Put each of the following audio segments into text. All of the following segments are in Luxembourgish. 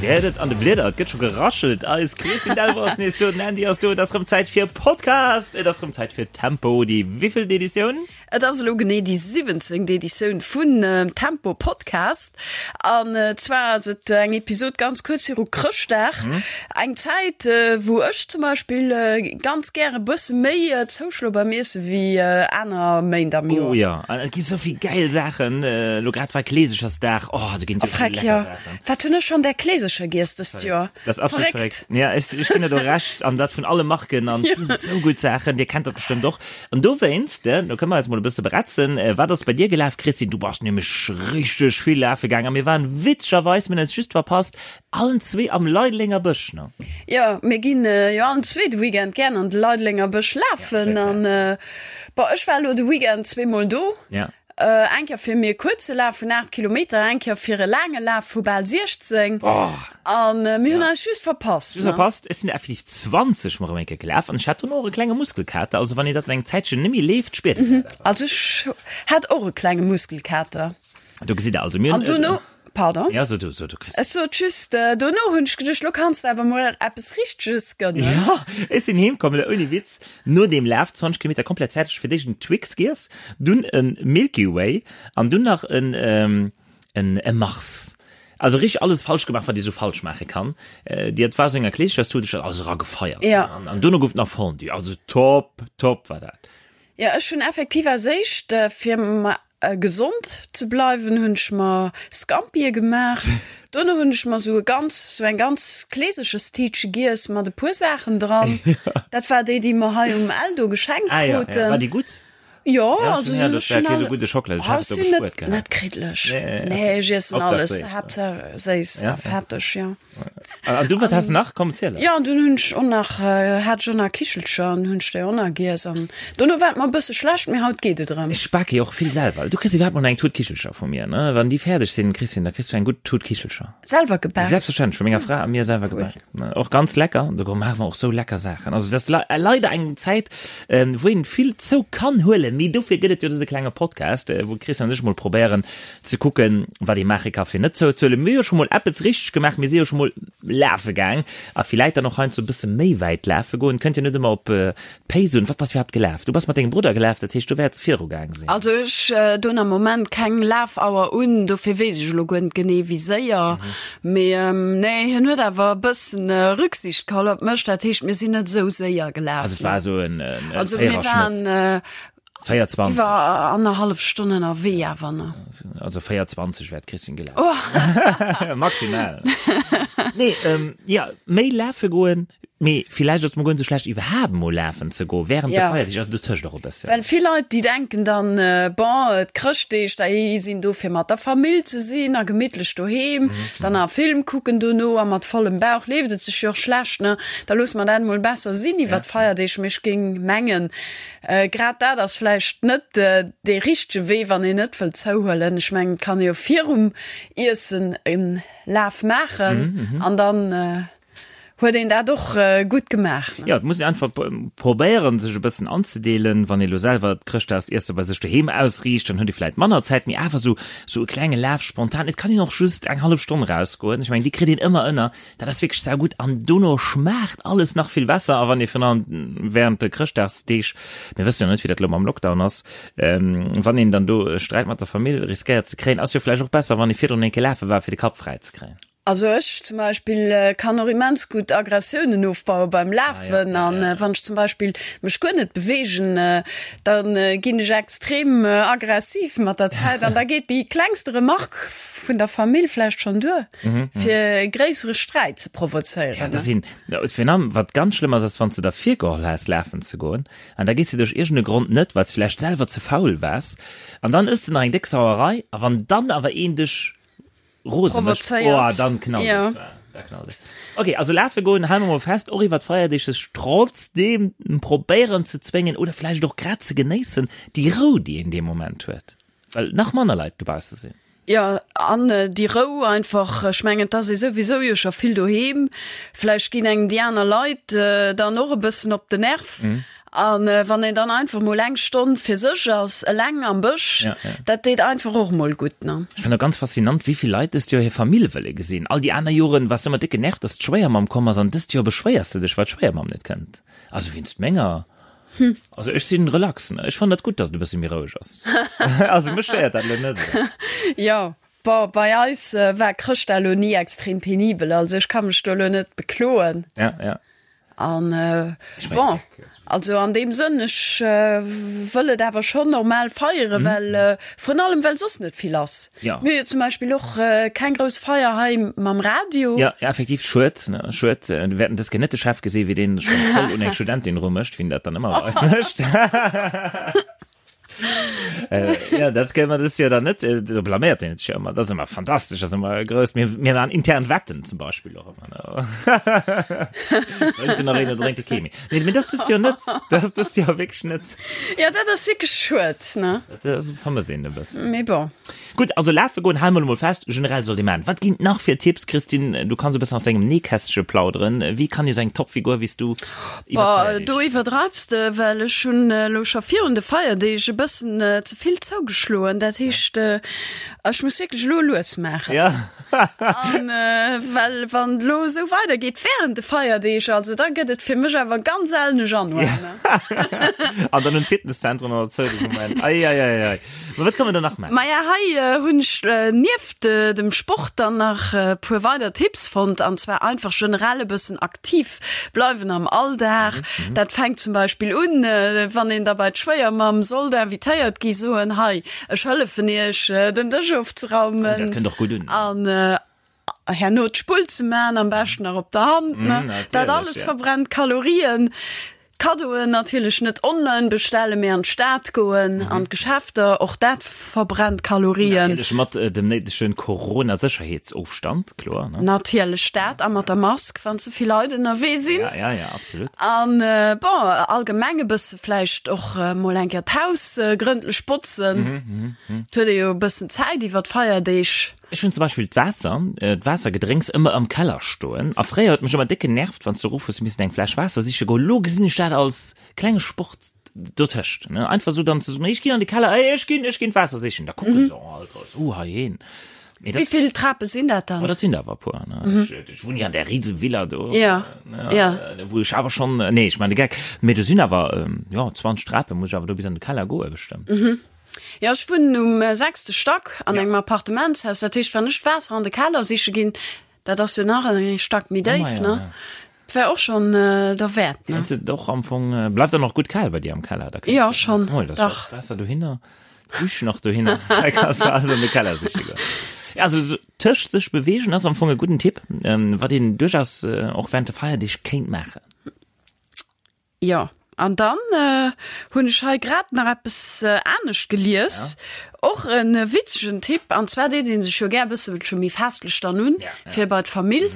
Dir héiert et an de Blieder, et gëtt scho geraschelt. Eis Christine Delvaux ass nees do, den Andy ass do. Et ass rëm Zäit fir Podcast, et ass rëm Zäit fir Tempo, déi wéivillt Editioun? Et ass elo genee déi 17. Editioun vun Tempo Podcast. An zwar ass et eng Episod ganz kuerz viru Chrëschtdag. Eng Zäit, wou ech zum Beispill ganz gär e bësse méi zouschloe beim Iesse wéi aner Méint am Joer. Oh jo, an et gi sou vill gäil Saachen. Elo grad war Kleesechersdag, oh do ginn et jo vill lecker Saachen. Wat hunn ech schonn där Kleesecher giess dëst Joer? Dat ass absolut verréckt. Ja, ech, ech ginn der do Recht an dat vun alle Marken an ja. sou gutt Saachen, Dir kennt dat bestëmmt och. An dowéinst, äh, do kënne mer eis mol e bësse beretzen, äh, wat ass bei dir gelaf, Christine? Du bass nämlech richteg vill lafe gaang a mir waren witzegerweis, mir hunn eis just verpasst, allen zwee am Leidelenger Bësch, ne? Ja, mir ginn äh, jo allen zwee de Weekend gären an de Leidelenger Bësch lafen ja, an äh, bon, ech war elo de Weekend zweemol do. Ja. Eng Kéier fir mir kuerze Laf vun 8 Kilometer, eng Kéier fir e laange Laf vu bal 16. An mir hunn eis just verpasst. Just verpasst. Ech sinn effektiv 20 mol erëm eng Kéier gelaf an ech hat dono och e klenge Muskelkater. Also wann een dat eng Zäitchen net méi leeft, spiert een dat awer. Also ech hat och e klenge Muskelkater. Do gesitt der also, mir hunn. An dono, pardon. Ja, so du, so du, Christine. Ech sot just, dono hunn ech geduecht, lo kanns de awer mol eppes Richteges gënnen. Ja, ech sinn heem komm, ouni Witz, no deem Laf, 20 Kilometer komplett fäerdeg, fir d'éischt en Twix giess, dunn e Milky Way an dunn nach en, en, e Mars. Also richteg alles falsch gemaach, wat ee sou falsch maache kann. Déi, et war sou enger Kleeschecherstut, ech hat alles eragefeiert. Ja. An, an dono gouf et nach Fondue. Also top, top war dat. Ja, ech hunn effektiv als éischt, fir Gesond ze bleiwen hunn ech mer Scampie gemaach. Dono hunn ech mer sou e ganz sou eng ganz Kleeserchestiitche giess mat e puer Saachen dran. Dat war déi déi mer hei um Eldo geschenkt Ah ja, ja. War déi gutt? Jo, also ja, dat war kee sou gudde Schockela, ech hat et do gespuert gehat. Net kriddlech. Nee, ech iessen alles, Haaptsaach séiss a fetteg, jo. An du, wat has de nach? Komm, ziel eis. Jo, an dunn hunn ech och nach, hat ech och nach Kichelcher an hunn ech déi och nach giess. An dono war et mer e bësse schlecht, mee haut geet et erëm. Ech bake jo och vill selwer. Du kriss iwwerhaapt mol eng Tut Kichelcher vu mir, ne? Wann déi fäerdeg sinn, Christine, da kriss du eng gutt Tut Kichelcher. Selwer gebak? Selbstverständlech, vu menger Fra a mir selwer gebak. Och ganz lecker. Do maache mer och sou lecker Saachen. Also, dat ass leider eng Zäit, wou een vill zou kann huelen, mee dofir gëtt et jo dëse klenge Podcast, wou d'Christiane an ech mol probéieren, ze kucken, wat ee maache ka fir net zouzehuelen. Mir hu jo scho mol eppes richteg gemaach, mir si jo scho mol lafe gaang a villäit dann och heiansdo e bësse méi wäit lafe goen. Kënnt jo net ëmmer op d'Pace un. Wat bass iwwerhaapt gelaf? Du bass mat dengem Brudder gelaf, dat heescht du wäerts viru gaang sinn. Also ech doen am Moment keng Lafauer un, dofir weess ech elo guer net genee wéi séier. Mee nee, hien huet awer e bëssen Rücksicht geholl op mech, dat heescht mir sinn net esou séier gelaf. Also et war esou en Véiererschnëtt? 24. Iwwer annerhallef Stonn ënnerwee awer, ne? Also 4,20 wär d'Christine gelaf. Oh. Maximal. Nee, ähm, ja, méi lafe goen, mee villäicht ass et mol guer net sou schlecht, iwwerhaapt mol lafen ze goen, während de Feierdeeg, also dotëscht och e bëssen. Well vill Leit, déi denken dann, bon, d'Chrëschtdeeg, déi sinn do fir mat der Famill ze sinn a gemittlech doheem, dann nach e Film kucken dono a mat vollem Bauch leeft et sech jo och schlecht, ne? Da loosse mer dat mol besser sinn iwwer d'Feierdeeg. Mee ech géing mengen, Grad dat ass vläicht net dee richtege Wee, wann een net wëllt zouhuelen. Ech mengen, et kann ee jo virum Iessen e Laf maachen an dann huet een dat och gutt gemaach. Jo, et muss een einfach probéieren, sech e bëssen anzedeelen. Wann ee lo selwer d'Chrëschtdagsiesse bei sech doheem ausriicht, dann huet ee vläicht manner Zäit, mee awer esou e klenge Laf spontan. Et kann een och just eng hallef Stonn erausgoen. Ech mengen, déi kritt een ëmmer ënner. Dat ass wierklech saugutt an dono schmaacht alles nach vill besser. A wann ee virun allem während de Chrëschtdagsdeeg, mir wëssen jo net wéi dat elo mam Lockdown ass, wann een dann do e Sträit mat der Famill riskéiert ze kréien, ass jo vläicht och besser wann ee virdrun eng Kéier lafe war fir de Kapp fräi ze kréien. Also ech zum Beispill kann och immens gutt Aggressiounen ofbaue beim Lafen an wann ech zum Beispill mech guer net beweegen, da ginn ech extrem aggressiv mat der Zäit an da geet déi klengste Remarque vun der Famill vläicht schonn duer. Fir e gréissere Sträit ze provozéieren. Ja, da sinn, virun allem, wat ganz schlëmm ass, ass, wann s de der virgeholl has, lafen ze goen, an da gees de duerch iergend e Grond net, well s de vläicht selwer ze faul waars, an dann ëss de nach eng déck Sauerei, a wann dann awer een dech rose mécht, oh, dann knallt et zwar, da knallt et. Ok, also lafe goen, hale mer mol fest, och iwwer d'Feierdeeg sech trotzdeem probéieren ze zwéngen oder vläicht och grad ze genéissen, déi Rou, déi een dee Moment huet, well nach manner Leit dobausse sinn. Jo, an déi Rou einfach. Ech mengen, et ass ee souwisou jo scho vill doheem. Vläicht ginn engem déi aner Leit dann och e bëssen op den Nerv. An wann een dann einfach mol eng Stonn fir sech ass, eleng am Bësch, Ja, ja. dat deet einfach och mol gutt, ne? Ech fannen och ganz faszinant, wéi vill Leit dëst Joer hir Famill wëlle gesinn. All déi aner Joren waars de ëmmer déck genervt, dass d'Schwéiermamm komm ass, an dëst Joer beschwéiers de dech, well d'Schwéiermamm net kënnt. Also wéinst menger. Also ech sinn relax, ne? Ech fannen dat gutt, dass et e bësse méi roueg ass. Also mech stéiert dat elo net esou. Jo, bon, bei eis war Chrëschtdag elo ni extrem penibel, also ech ka mech do elo net bekloen. Ja, ja. An bon, also an deem Sënn, ech wëll et awer schonn normal feieren, well vrun allem well soss net vill ass. Mir hu jo zum Beispill och keng grouss Feier hei mam Radio. Jo, effektiv, schued, ne, schued. Mir wäerten dës Kéier net de Chef gesinn, wéi deen scho voll un eng Studentin erumécht, wéi en dat dann ëmmer bei eis mécht. Äh, ja, dat kënne mer dëst Joer dann net. Äh, do blaméiert een sech jo ëmmer. Dat ass ëmmer fantastesch, dat ass ëmmer grouss. Mir, mir waren intern Wetten zum Beispill och ëmmer. Ne? Drénkt en nach een oder drénkt e kee méi? Nee, mee dat ass dëst Joer net. Dat ass dëst Joer wierklech net. Ja, dat ass wierklech schued, ne? Dat ass, vermësst een e bëssen. Mee bon. Gutt, also lafe goen, hale mer elo mol fest, generell sollt ee maachen. Wat ginn et nach fir Tipps, Christine? Du kanns e bëssen aus dengem Nähkästche plauderen. Wéi kann ee sou eng Topfigur wéi s du iwwer Boah, d'Feierdeeg? do iwwerdreifs de, well ech hunn elo scho virun de Feierdeeg e bëssen ze vill zougeschloen. Dat heescht, ech muss wierklech elo lues maachen. Ja. An well wann et elo esou weidergeet wärend de Feierdeeg, also da gëtt et fir mech awer ganz sellen e Januar, ne? An dann hunn d'Fitnesszentren och zou de Moment. Ei, ei, ei, ei. Ma wat kann man da nach maachen? Maja, hei hunn ech nieft dem Sport dann nach e puer weider Tipps fonnt, an zwar einfach generell e bëssen aktiv bleiwen am Alldag. Dat fänkt zum Beispill un, wann een da bei d'Schwéiermamm sollt invitéiert gi, soen, hei, ech hëllefen iech den Dësch ofzeraumen. Oh, dat kënnt och gutt un. An herno d'Spull ze man, am beschten nach op der Hand, ne? Dat alles verbrennt Kalorien. Kaddoen natierlech net online bestellen, mee an d'Stad goen, an d'Geschäfter, och dat verbrennt Kalorien. Natierlech mat dem néidegen Corona-Sécherheetsofstand, kloer, ne? Natierlech dat, a mat der Mask, wann ze vill Leit ënnerwee sinn. Ja, ja, ja, absolut. An bon, allgemeng e bësse vläicht och mol eng Kéier d'Haus grëndlech botzen. Et huet ee jo e bëssen Zäit iwwer d'Feierdeeg. Ech hunn zum Beispill d'Waasser, d'Waassergedrénks ëmmer am Keller stoen a fréier huet mech ëmmer déck genervt, wann s du erof hues missen eng Fläsch Waasser siche goen. Elo gesinn ech dat als klenge Sport dotëscht, ne, einfach esou dann ze soen, ech ginn an de Keller, ey, ech ginn, ech ginn d'Waasser sichen. Da kucken se all grouss, uh, hei een. Mee dat. Wéi vill Trape sinn dat dann? Oh, dat sinn der awer e puer, ne. Ech, ech wunnen jo an där rise Villa do, Ja, ja. wou ech awer schonn, nee, ech maachen de Geck, mee do sinn awer, jo, 20 Trape muss ech awer do bis an de Keller goe bestëmmt. Jo, ech wunnen um sechste Stack an engem Appartementshaus. Dat heescht, wann ech d'Waasser an de Keller siche ginn, dat ass jo nach e Stack méi déif, ne? Wär och schonn derwäert, ne? Kenns de och am Fong, bleift dann och gutt kal bei dir am Keller? Da kenns Jo, schonn, dach. D'Waasser dohinner, d'Dusch nach dohinner, da kanns de alles an de Keller siche goen. Ja, also sou tëscht sech beweegen ass am Fong e gudden Tipp, wat een duerchaus och während de Feierdeeg kéint maachen. Jo, an dann hunn ech hei grad nach eppes anescht gelies, och e witzegen Tipp, an zwar deet ee sech jo gär e bësselche méi festlech dann un, fir bei d'Famill.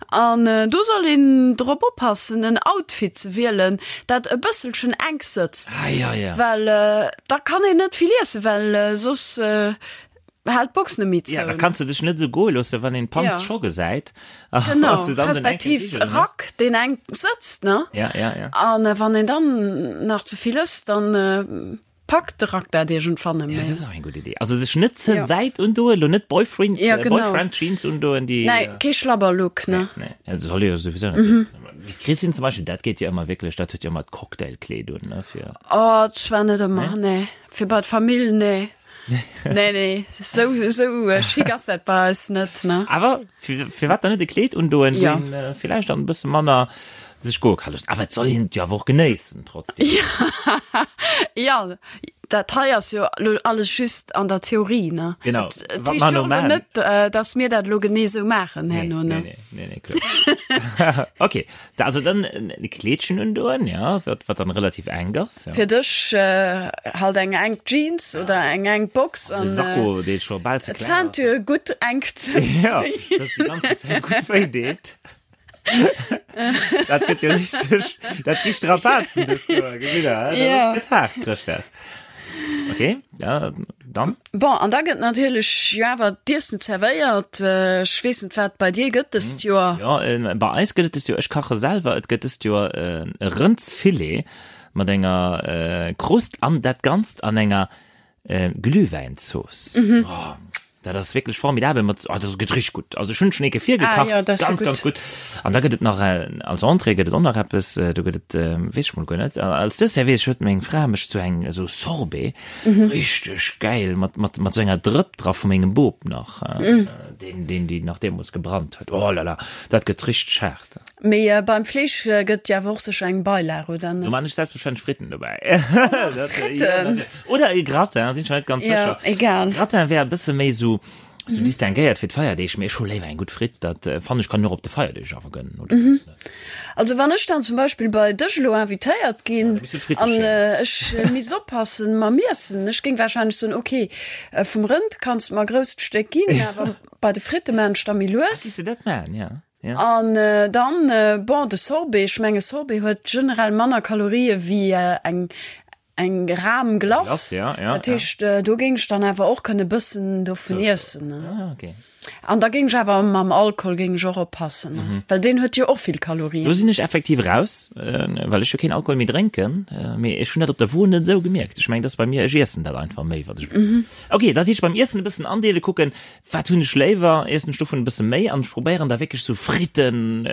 An do soll een drop oppassen, en Outfit ze wielen, dat e bësselchen enk sëtzt, well da kann een net vill iessen, well soss Haalt d'Box net méi zou. Ja, da kanns de dech net esou goe loossen, wann een d'Panz Ja. scho gesäit. Genau, respektiv e Rack, deen enk sëtzt, ne? Ja, ja, ja. An wann een dann nach ze vill ësst, dann packt de Rack dat iergendwann net Ja, méi. dat ass och eng gutt Idee. Also sech net ze Ja. wäit undoen, elo net Boyfriend, Ja, genau. Boyfriend-Jeans undoen, déi. Nee, kee Schlabberlook, ne? Nee, nee, dat soll jo souwisou net sinn. Wéi d'Christine zum Beispill, dat geet jo ëmmer wierklech, dat huet jo ëmmer d'Cocktailkleed un, ne, fir. Oh, zwar net ëmmer, nee. Fir bei d'Famill, nee. Nee, nee, sou, sou äh, schick ass dat bei eis net, ne? Awer fir, firwat dann net e Kleed undoen, Ja. wou een äh, villäicht dann e bësse manner sech goe ka loossen. Awer et soll een et jo awer och genéissen trotzdem. Ja, dat hei ass jo lo alles just an der Theorie, ne? Genau. Et, et Wat heescht mer jo no och maachen. net, äh, dass mir dat lo genee sou maachen herno, Nee, ne? nee, nee, nee, kloer. Okay, da, also dann e Kleedchen undoen, ja, wat, wat dann relativ enk ass. Ja. Fir dech halt eng enk Jeans oder eng enk Box an e Sakko, dee scho bal ze kleng ass. Ceinture gutt enk ze Ja, dass déi ganze Zäit gutt wéi deet. Dat gëtt jo richteg, dat gi Strapazen dëst Joer, gesitt Der, dat Ja. ass gëtt haart, Chrëschtdag. Okay, ja, dann. Bon, an da gëtt natierlech jo awer d'Iessen zerwéiert. Ech weess net, wat bei dir gëtt dëst Joer. Jo, bei eis gëtt et dëst Joer, ech kache selwer, et gëtt dëst Joer e Rëndsfilet. mat enger Krust an dat Ganzt an enger Glühwäinzooss. Oh, dat ass wierklech formidabel mat, oh, dat gëtt richteg gutt. Also ech hunn schon ee Kéier virgekacht, ah, ja, das ganz, ganz gutt. An da gëtt et nach als Entrée gëtt et och nach eppes, do gëtt et, weess ech mol guer net. Als Dessert weess ech, huet meng Fra mech zu eng esou Sorbet, mhm. richteg gäil, mat, mat, mat sou enger Drëpp dra vu mengem Bop nach, mhm. deen, deen déi nach deemools gebrannt huet. Oh la la, dat gëtt richteg haart. Mee beim Fleesch gëtt jo awer och sécher eng Beilag, oder net? Do man ech selbstverständlech Fritten dobäi. Fritten? Oder e Gratin, sinn ech mer net ganz sécher. Ja, egal. Gratin wär e bësse méi sou, sou distinguéiert fir d'Feierdeeg, mee ech hu léiwer eng gutt Fritt. Dat fannen ech kann een och op de Feierdeeg awer gönnen, oder weess net. Also wann ech dann zum Beispill bei dech elo invitéiert ginn an ech misst oppassen mam Iessen, ech géing wahrscheinlech soen, ok, vum Rënd kanns de mer e grousst Stéck ginn, awer bei de Fritte maan ech da méi lues. Ah, géifs de dat maan, ja. Ja. An dann, bon, de Sorbet, ech menge Sorbet huet generell manner Kalorië wéi eng eng Ram Glace. Glace, ja, ja, Dat heescht, do géing ech dann awer och kënne bëssen dovun iessen. Ah, okay. An da géing ech awer mam Alkohol géing ech och oppassen, well deen huet jo och vill Kalorien. Do sinn ech effektiv raus, well ech jo keen Alkohol méi drénken, mee ech hunn dat op der Wo net esou gemierkt. Ech mengen, dat ass bei mir, ech iessen dat einfach méi, wat ech. Okay, dat heescht beim Iessen e bëssen andeele kucken, Wat hunn ech léiwer? Iessen ech dovun e bësse méi an ech probéieren da wierklech sou Fritten,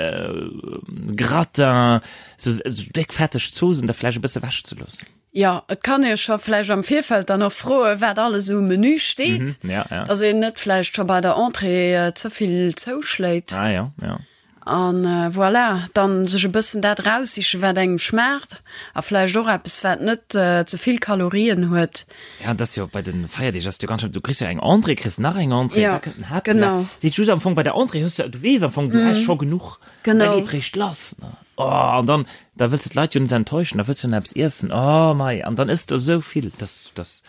Gratin, sou déck fetteg Zoosen da vläicht e bësse wech ze loossen. Jo, et kann ee scho vläicht am Virfeld dann och froen, wat alles um Menü steet, dass een net vläicht scho bei der Entrée ze vill zouschléit. Ah jo, jo. An voilà, dann sech e bëssen dat eraussichen, wat engem schmaacht a vläicht och eppes, wat net ze vill Kalorien huet. Ja, dat ass jo bei de Feierdeeg ass jo ganz schlëmm, du kriss jo eng Entrée, kriss nach eng Entrée, Ja, da kënnt den Haaptplat. genau. Dat heescht just am Fong bei der Entrée hues du, du weess am Fong, du häss scho genuch. An da Genau. geet réischt lass, ne? Oh, an dann, da wëlls de d'Leit jo net enttäuschen, da wëlls du nach eppes iessen, oh mei, an dann ëss de esou vill, dass, dass,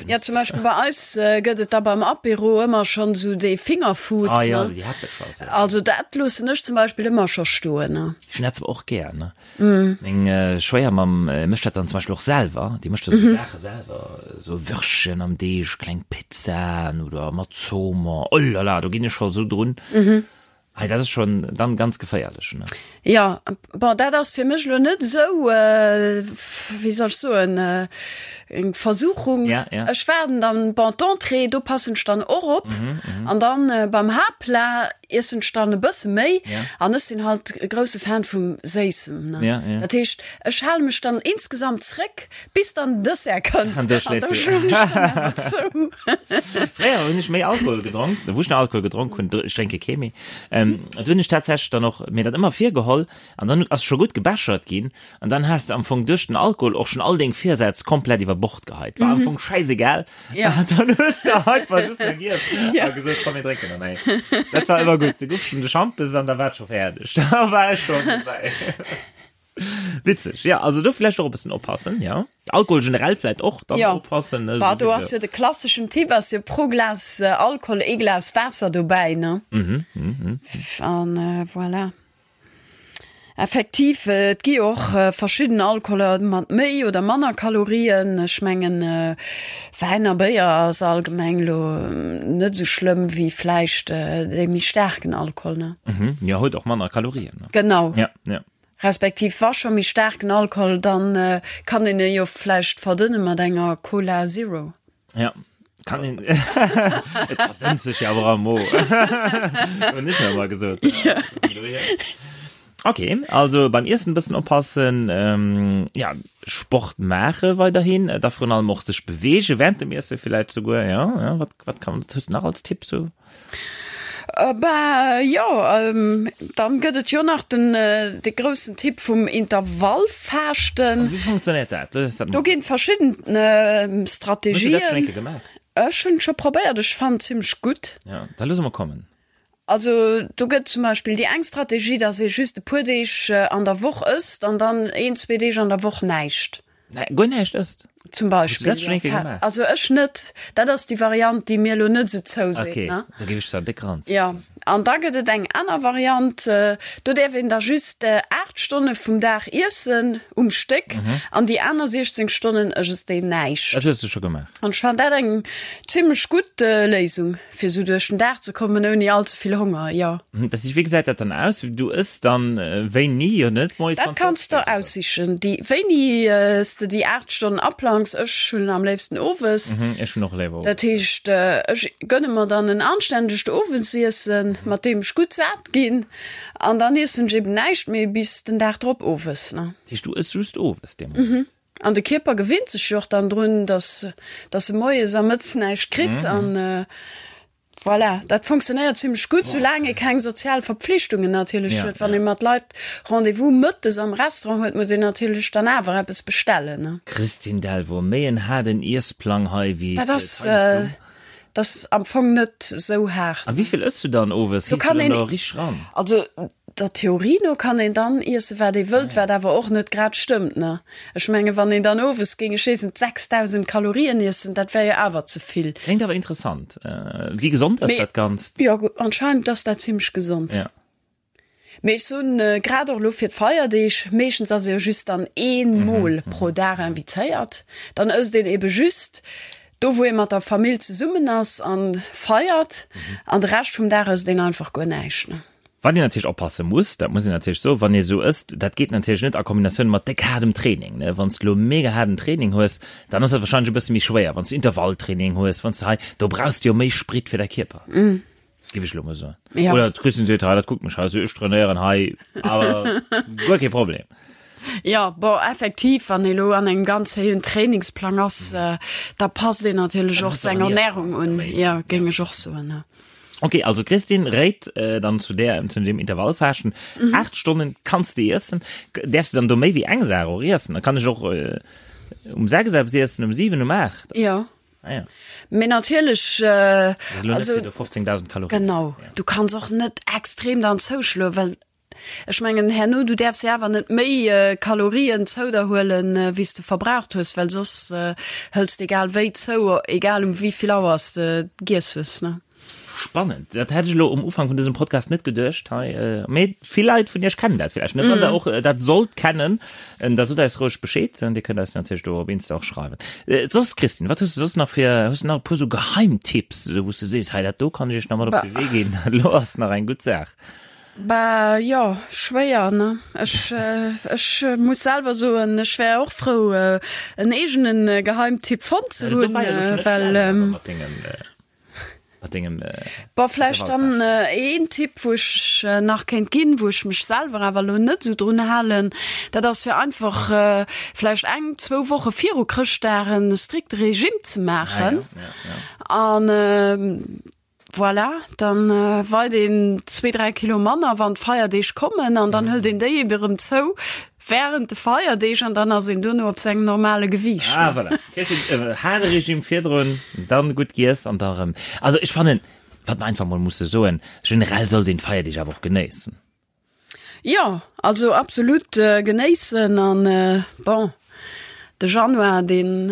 Ja, zum Beispill bei eis gëtt et da beim Apéro ëmmer schonn esou dee Fingerfood. Ah ja, déi Häppecher sou. Also dat loossen ech zum Beispill ëmmer scho stoen, ne. Ech hunn dat zwar och gär, ne. Meng Schwéiermamm mécht dat dann zum Beispill och selwer. Déi mécht da sou Saache selwer, sou Würstchen am Deeg, kleng Pizzaen oder mat Zoomer. Oh la la, do ginn ech scho sou drun. Hei, dat ass schon dann ganz geféierlech, ne? Jo, bon, dat ass fir mech elo net esou, wéi soll ech soen, eng Versuchung. Ja, ja. Ech waarden dann, bon, d'Entrée, do passen ech dann och op. An dann beim Haaptplat iessen ech dann e bësse méi. Ja. An ech sinn halt e grousse Fan vum Séissem, ne? Ja, ja. Dat heescht, ech hale mech dann insgesamt zréck. Bis dann den Dessert kënnt. An da schléist du. Zou. Fréier hunn ech méi Alkohol gedronk, wou ech nach Alkohol gedronk hunn, ech drénke kee méi, do hunn ech tatsächlech dann och mir dat ëmmer virgeholl an dann ass scho gutt gebechert ginn an dann has de am Fong duerch den Alkohol och schonn all deng Virsätz komplett iwwer Bord geheit. War am Fong schäisegal. Ja. An dann hues de einfach just nach giess a gesot, komm mir drénken nach eng. Dat war ëmmer gutt. Du gouf schonn de Schampes an da war et scho fäerdeg. Da war ech schonn dobäi. Witzeg, ja, also do vläicht och e bëssen oppassen, ja. Alkohol generell vläicht och dann Ja. oppassen, ne, Bah, do souwisou. ass jo de klasseschen Tipp ass jo pro Glas Alkohol ee Glas Waasser dobäi, ne? Mhm, mhm. An voilà. Effektiv, et gi jo och verschidden Alkoholer mat méi oder manner Kalorien. Ech mengen, Wäin a Béier ass allgemeng lo net esou schlëmm wéi vläicht dee méi staarken Alkohol, ne? Mhm, jo, huet och manner Kalorien, ne? Genau. Ja, ja. Respektiv wa scho méi staarken Alkohol, dann kann een e jo vläicht verdënne mat enger Cola Zero. Ja, kann een. Et verdënnt sech jo awer am Mo. Hunn ech mir ëmmer gesot. Ok, also beim Iessen e bëssen oppassen, ja, Sport maache weiderhin, da virun allem och sech beweege während dem Iesse villäicht souguer, ja, ja, wat, wat kann, wat hues de nach als Tipp sou? Bah jo, dann gëtt et jo nach den de groussen Tipp vum Intervallfaaschten. Wéi funktionéiert dat? Do ginn verschidden Strategien. Hues du dat schonn eng Kéier gemaach? Ech hunn et scho probéiert, ech fannen et zimmlech gutt. Jo, da loosse mer kommen. Also do gëtt zum Beispill déi eng Strategie, dass ee just e puer Deeg an der Woch ësst an dann een, zwee Deeg an der Woch näischt. Guer näischt ësst? Zum Beispill. Hues du dat schon eng Kéier gemaach? Also ech net. Dat ass déi Variant, déi mir elo net esou zouseet, Okay, ne? da géif ech zwar déck ran. Jo, an da gëtt et eng aner Variant, do däerf een da just 8 Stonne vum Dag iessen um Stéck an déi aner 16 Stonnen ësst een näischt. Dat hues du scho gemaach? An ech fannen dat eng zimlech gutt Léisung. Fir sou duerch den Dag ze kommen ouni all ze vill Honger, jo. Dat heescht, wéi gesäit dat dann aus? Du ëss dann wéini? Jo net moies Dat kanns de der aussichen, déi wéini s de déi 8 Stonnen aplangs. Ech hunn am léifsten owes. Ech hunn och léiwer owes. Dat heescht, ech gënne mer dann en anstännegt Owesiessen, mat deem ech gutt sat ginn, an dann iessen ech eben näischt méi bis den Dag drop owes. Dat heescht, du ëss just owes dee Moment? An de Kierper gewinnt sech jo och dann drun, dass, dass e moies a mëttes näischt kritt. An voilà, dat funktionéiert zimlech gutt, soulaang ee keng sozial Verpflichtungen natierlech huet. Wann ee mat Leit Rendez-vous mëttes am Restaurant huet, muss een natierlech dann awer eppes bestellen, ne? Christine Delvaux, Méi en haarden Iessplang hei wéi Dat ass, dat ass am Fong net esou haart. A wéi vill ëss du dann owes? Do Hees du kann dann een, do richteg ran? also Der Theorie no kann een dann iessen, wat ee wëllt, wat awer och net grad stëmmt, ne? Ech mengen, wann een dann owes géing, ech weess net, 6.000 Kalorien iessen, dat wär jo awer ze vill. Kléngt awer interessant. Wéi gesond ass dat Ganzt? Jo, anscheinend ass dat zimmlech gesond. Ja. Mee ech soen, grad och elo fir d'Feierdeeg, meeschtens ass ee jo just dann ee Mol pro Dag invitéiert, dann ësst een ebe just do, wou ee mat der Famill zesummen ass a feiert, an de Rescht vum Dag ësst een einfach guer näischt, ne? Wat een natierlech oppasse muss, dat muss een natierlech soen, wann ee sou ësst, dat geet natierlech net a Kombinatioun mat déck haardem Training, ne. Wann s de elo mega haarden Training hues, dann ass dat wahrscheinlech e bësse méi schwéier. Wann s de Intervalltraining hues, wann s de hei, do brauchs de jo méi Sprit fir däi Kierper, géif ech elo mol soen. Ja. Oder d'Christine seet, hei, dat kuckt mech hei esou, ech trainéieren hei awer guer kee Problem. Jo, bon, effektiv, wann ee lo an engem ganz héijen Trainingsplang ass, da passt een natierlech och seng Ernärung un, jo, géing ech och soen, ne. Ok, also d'Christine réit dann zu där, zu deem Intervallfaaschten. 8 Stonnen kanns de iessen. Däerfs de dann do méi wéi eng Saach och iessen? Da kann ech och um 6 eppes iessen, um 7, um 8? Jo. Ah ja. Mee natierlech, Das ist elo net also fir do 15.000 Kalorien. Genau, du kanns och net extrem dann zouschloen, well Ech mengen herno, du däerfs jo awer net méi Kalorien zou der huelen, wéi s de verbraucht hues, well soss hëls de egal wéi zou, egal um wéi vill Auer s de giess hues, ne? Spannend, dat hätt ech elo um Ufank vun dësem Podcast net geduecht hei, mee vill Leit vun iech kennen dat villäicht net. Wann der och dat sollt kennen, da sot eis roueg Bescheed, dir kënnt eis natierlech do op Insta och schreiwen. Soss Christine, wat hues de soss nach fir, hues de nach e puer sou Geheimtipps, wou s de sees, hei dat do kann ech iech nach mat op de Wee ginn, dat elo ass nach eng gutt Saach? Bah jo, schwéier ne? Ech ech muss selwer soen, ech wär och frou en eegenen Geheimtipp fonnt ze hunn, well Mat dengem Bon vläicht dann een Tipp wou ech nach kéint ginn, wou ech mech selwer awer elo net esou drun halen, dat ass fir einfach vläicht eng, zwou Woche viru Chrëschtdag en strikte Regime ze maachen an Voilà, dann weit een zwee, dräi Kilo manner, wann d'Feierdeeg kommen an dann hëlt een déi ebe rëm zou während de Feierdeeg an dann ass een duerno op sengem normale Gewiicht. Ah, voilà. Kriss een haarde Regime virdrun, dann gutt giess an da rëm. Also ech fannen, wat mer einfach mol musse soen, generell sollt een d'Feierdeeg awer och genéissen. Jo, also absolut genéissen an bon, de Januar deen,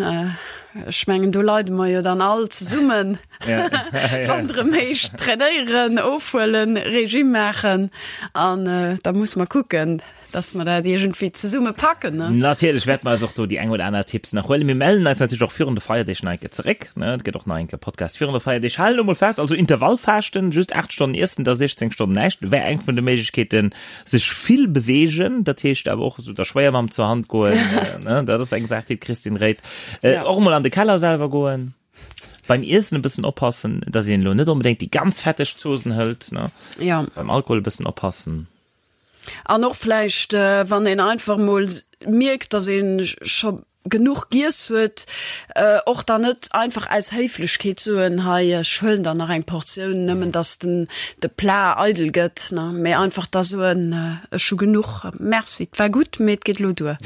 ech mengen do leide mer jo dann all zesummen, wann et erëm heescht trainéieren, ofhuelen, Regime maachen an da musse mer kucken, dass mer dat iergendwéi zesumme packen, ne? Natierlech wäerte mer eis och do déi eng oder aner Tipps nach huelen. Mir mellen eis natierlech och virun de Feierdeeg nach eng Kéier zeréck, ne? Et gëtt och nach eng Kéier Podcast virun de Feierdeeg. Halen elo mol fest, also Intervallfaaschten, just 8 Stonnen iessen, da 16 Stonnen näischt, wär eng vun de Méiglechkeeten. Sech vill beweegen, dat heescht awer och esou der Schwéiermamm zur Hand goen, ne? Dat ass eng Saach, déi d'Christine réit. Och emol an de Keller selwer goen. Beim Iessen e bëssen oppassen, dass een elo net onbedéngt déi ganz fetteg Zosen hëlt, ne? Ja. Beim Alkohol e bëssen oppassen. An och vläicht, wann een einfach mol mierkt, dass ee scho genuch giess huet, och dann net einfach aus Héiflechkeet soen, hei ech huelen der nach eng Portioun, nëmmen dass den de Plat eidel gëtt, ne, mee einfach da soen, ech hu genuch, merci, et war gutt, mee et geet elo duer.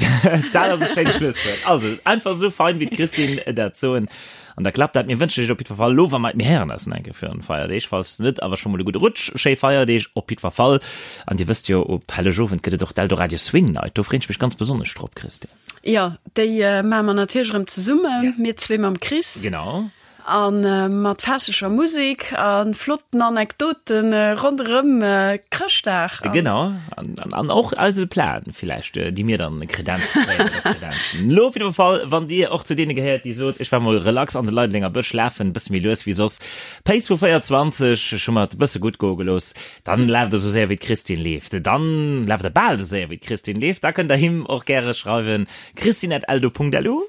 Dat ass e schéint Schlusswuert. Also einfach esou fein wéi d'Christine dat soen. An da klappt dat. Mir wënschen iech op jiddwer Fall elo, wa mer, mir héieren eis nach eng Kéier virun de Feierdeeg, falls net, awer scho mol e gudde Rutsch, schéi Feierdeeg op jiddwer Fall. An dir wësst jo, op Hellegowend gëtt et och d'Eldoradio Swing Night. Do freen ech mech ganz besonnesch drop, Christine. Jo, déi maache mer natierlech erëm zesummen, mir zwee mam Chris. Genau. A mat festlecher Musek a flotten Anekdoten ronderëm Chrëschtdag. Genau, an och eise Plan villäicht, déi mir dann kredenzt kréien oder kredenzen. Lo op jidder Fall, wann Dir och zu deene gehéiert, déi sot, ech war mol relax an de Leidelenger Bësch lafen, e bësse méi lues wéi soss, Pace vu 24, ech hu mer et e bësse gutt goe gelooss, dann laaft der sou séier wéi d'Christine leeft, dann laaft der bal sou séier wéi d'Christine leeft, da kënnt der him och gäre schreiwen, christine@eldo.lu.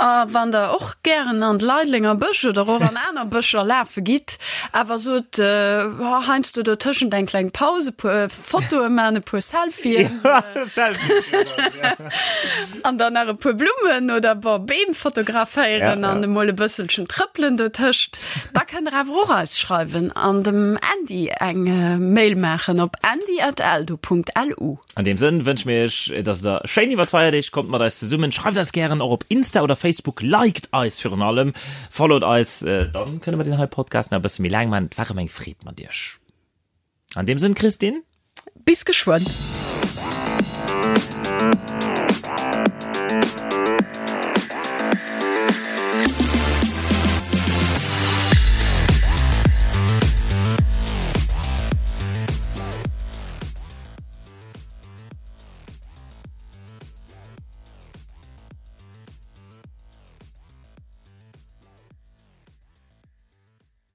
A wann der och gären an de Leidlenger Bësch oder och an aner Bëscher lafe gitt, awer sot heiansdo dotëschent eng kleng Paus, e puer Fotoe man, e puer Selfien an dann nach e puer Blummen oder bon Beem fotograféieren an emol e bësselchen trëppelen dotëscht, da kënnt der awer och eis schreiwen an dem Andy eng Mail maachen op andy@eldo.lu. An deem Sënn wënsche mir iech, dass der schéin iwwer d'Feierdeeg kommt mat eis zesummen. Schreift eis gären och op Insta oder Facebook, liked eis virun allem, followt eis, dann kënne mer deen hei Podcast nach e bësse méi laang maachen. Et war erëm eng Freed mat iech. An deem Sënn, Christine. Bis geschwënn.